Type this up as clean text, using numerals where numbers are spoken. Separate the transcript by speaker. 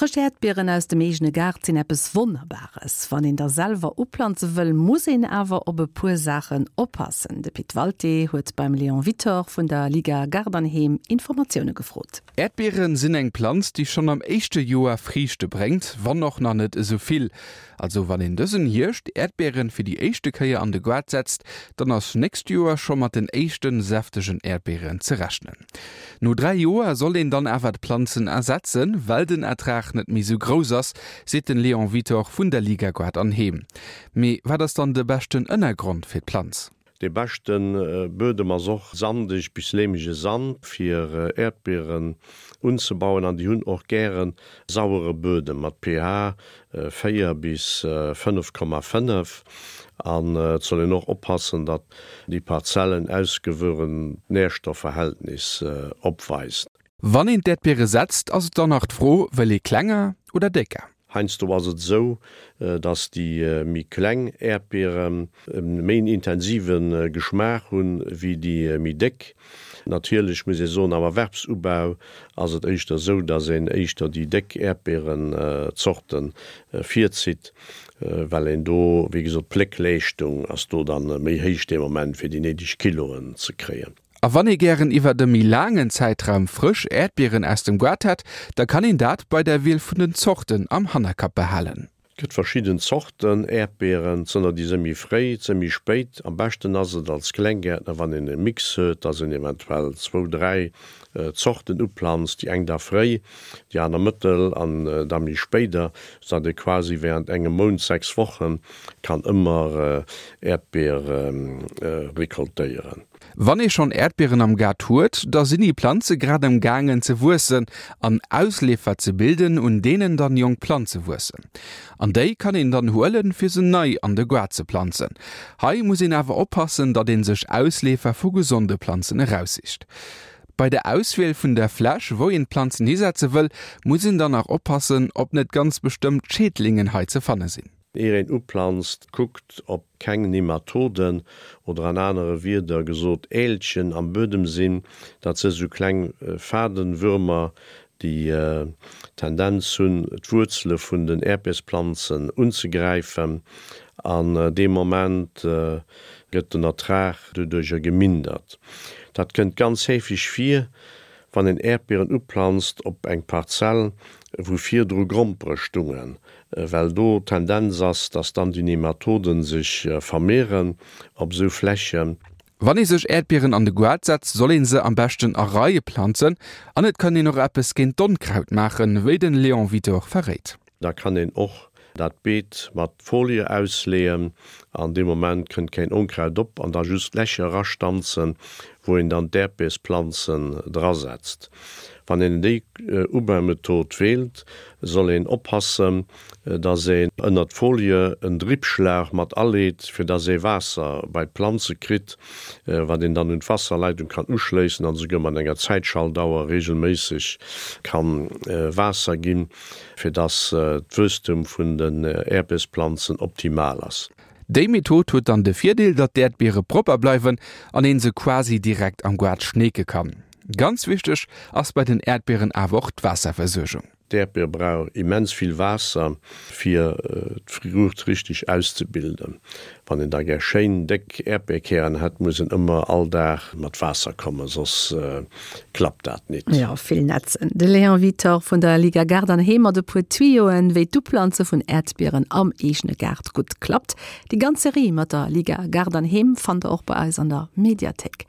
Speaker 1: Frësch Äerdbieren aus dem eegene Gaart sinn eppes Wonnerbares. Wann een der selwer uplanze wëll, muss een awer op e puer Saachen oppassen. De Pit Walté huet beim Léon Wittor vun der Liga Gaart an Heem Informatioune gefrot.
Speaker 2: Äerdbieren sinn eng Planz, déi schonn am éischte Joer Friichte bréngt, wann och nach net esou vill. Also wann een dësen Hierscht Äerdbieren fir déi éischte Kéier an de Goart setzt, dann ass nächst Joer scho mat den éischten säftegen Äerdbieren ze rechnen. No 3 Joer soll een dann awer d'Planzen ersetzen, well den Ertrag net méi sou grouss ass, seet den Léon Wittor vun der Liga Goart an Heem. Mee wat ass dann de beschten Ënnergrond fir d'Planz?
Speaker 3: Dee beschte Buedem ass och sandeg bis leemege Sand fir Äerdbieren unzebauen an déi hunn och gäre sauere Buedem mat pH 4 bis 5,5 an et soll een och oppassen, datt déi Parzell en ausgewuerent Nährstoffverhältnis opweist.
Speaker 2: Wann een d'Äerdbiere setzt, ass et dann nach d'Fro, wëll ee klenger oder décker?
Speaker 3: Heiansdo ass et esou, datt déi méi kleng Äerdbieren e méi intensive Geschmaach hunn, wéi déi méi déck. Natierlech muss ee soen, am Erwerbsubau ass et éischter esou, datt een éischter déi déck Äerdbierenzorte virzitt, well een do, wéi gesot, d'Pléckleeschtung ass do dann méi héich dee Moment, fir déi néideg Kiloen ze kréien.
Speaker 2: A wann ee gären iwwert e méi laangen Zäitraum frësch Äerdbieren aus dem Goart hätt, da kann een dat bei der Wiel vun den Zorten am Hannerkapp behalen.
Speaker 3: Et gëtt verschidden Zorten Äerdbieren, et sënn der déi së méi fréi, et së méi spéit. Am beschten ass et als Klenggäertner wann een e Mix huet, dass een eventuell zwou, 3 Zorten uplanzt, déi eng da fréi, déi aner mëttel an da méi spéider, sou datt ee quasi während engem Mount, 6 Wochen, kann ëmmer Äerdbiere recoltéieren.
Speaker 2: Wann ee schonn Äerdbieren am Gaart huet, da sinn déi Planze grad am gaangen ze wuessen an Ausleefer ze bilden, un deenen dann jonk Planze wuessen. An déi kann een dann huelen, fir se nei an de Gaart ze planzen. Hei muss een awer oppassen, datt ee sech Ausleefer vu gesonde Planzen eraussicht. Bei der Auswiel vun der Fläch, wou een d'Planzen hisetze wëll, muss een dann nach oppassen, ob net ganz bestëmmt Schädlingen hei ze fanne sinn.
Speaker 3: Ier een uplanzt, kuckt ob keng Nematoden, oder an anere Wierder gesot Älchen am Buedem sinn. Dat si sou kleng Fadenwürmer, déi d'Tendenz hunn, d'Wuerzele vun den Äerdbiersplanzen unzegräifen. An dee Moment gëtt den Ertrag doduercher gemindert. Dat kënnt ganz heefeg vir, wann een Äerdbieren uplanzt op eng Parzell, wou virdru Grompere stungen. Well do d'Tendenz ass, dass dann déi Nematoden sech vermehren op esou Flächen.
Speaker 2: Wann ee sech Äerdbieren an de Goart setzt, soll een se am beschten a Reie planzen. An et kann een och eppes géint d'Onkraut maachen, wéi den Léon Witor verréit.
Speaker 3: Da kann een och dat Beet mat Folie ausleeën an dee Moment kënnt keen Onkraut op an da just Lächer erastanzen, wou een dann d'Äerdbiersplanzen drasetzt. Wann een déi Ubaumethod weelt, soll een oppassen, dass een ënnert d'Folie en Drippschlauch mat aleet, fir dass ee Waasser bei d'Planze kritt, wat een dann un d'Wasserleitung kann uschléissen an esouguer mat enger Zäitschaltauer regelméisseg kann Waasser ginn, fir dass d'Wuesstum vun den Äerdbiersplanzen optimal ass.
Speaker 2: Déi Method huet dann de Virdeel, datt d'Äerdbiere propper bleiwen an een se quasi direkt am Goart schneeke kann. Ganz wichteg ass bei den Äerdbieren awer och d'Waasserversuergung.
Speaker 3: D'Äerdbier brauch immens vill Waasser fir d'Fruucht richteg auszebilden. Wann een da gär schéin déck Äerdbierkären hätt, muss een ëmmer all Dag mat Waasser kommen, soss klappt dat nit.
Speaker 1: Jo, vill netzen. De Léon Wittor vun der Liga Gaart an Heem mat e puer Tuyoen, wéi d'Uplanze vun Äerdbieren am eegene Gaart gutt klappt. Déi ganz Serie mat der Liga Gaart an Heem fannt der och bei eis an der Mediathéik.